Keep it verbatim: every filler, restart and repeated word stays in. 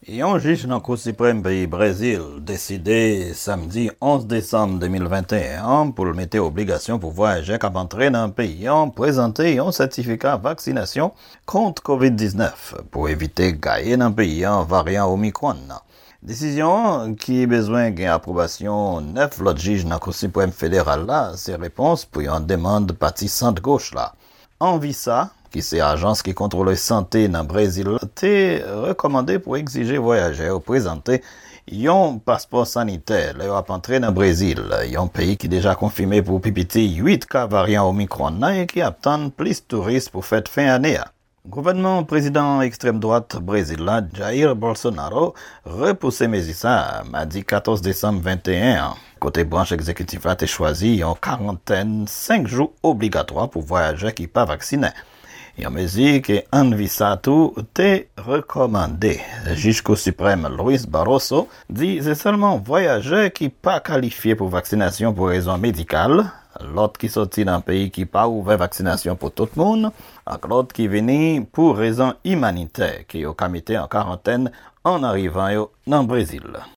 Yon jij nan Kou Siprèm peyi Brezil deside samdi onz desanm de mil venteyen an pou l mete obligasyon pou vwayajè k ap antre nan peyi an prezante yon sètifika vaksinasyon kont kovid diznèf pou evite gaye nan peyi an varyan Omicron nan. Desizyon an, ki bezwen gen apwobasyon nèf lòt jij nan Kou Siprèm Federal la, se repons pou yon demann pati sant goch la. Anvisa, ki se ajans ki kontwole sante nan Brezil la, te rekòmande pou egzije vwayajè yo prezante yon paspò sanitè lè yo ap antre nan Brezil, yon peyi ki deja konfime pou pi piti uit ka varyan Omicron nan e ki ap tann plis touris pou fèt fen ane a. Gouvènman prezidan ekstrèm dwat Brezil la, Jair Bolsonaro, repouse mezi sa a madi katòz desanm venteyen an, kote branch egzekitif la te chwazi yon karantèn senk jou obligatwa pou vwayajè ki pa vaksinen. Yon mezi ke Anvisa tou te rekòmande. Jij Kou Siprèm Luis Barroso di se sèlman vwayajè ki pa kalifye pou vaksinasyon pou rezon medikal, lòt ki soti nan peyi ki pa ouvè vaksinasyon pou tout moun, ak lòt ki vini pou rezon imanitè ke yo ka mete an karantèn an arivan yo nan Brezil.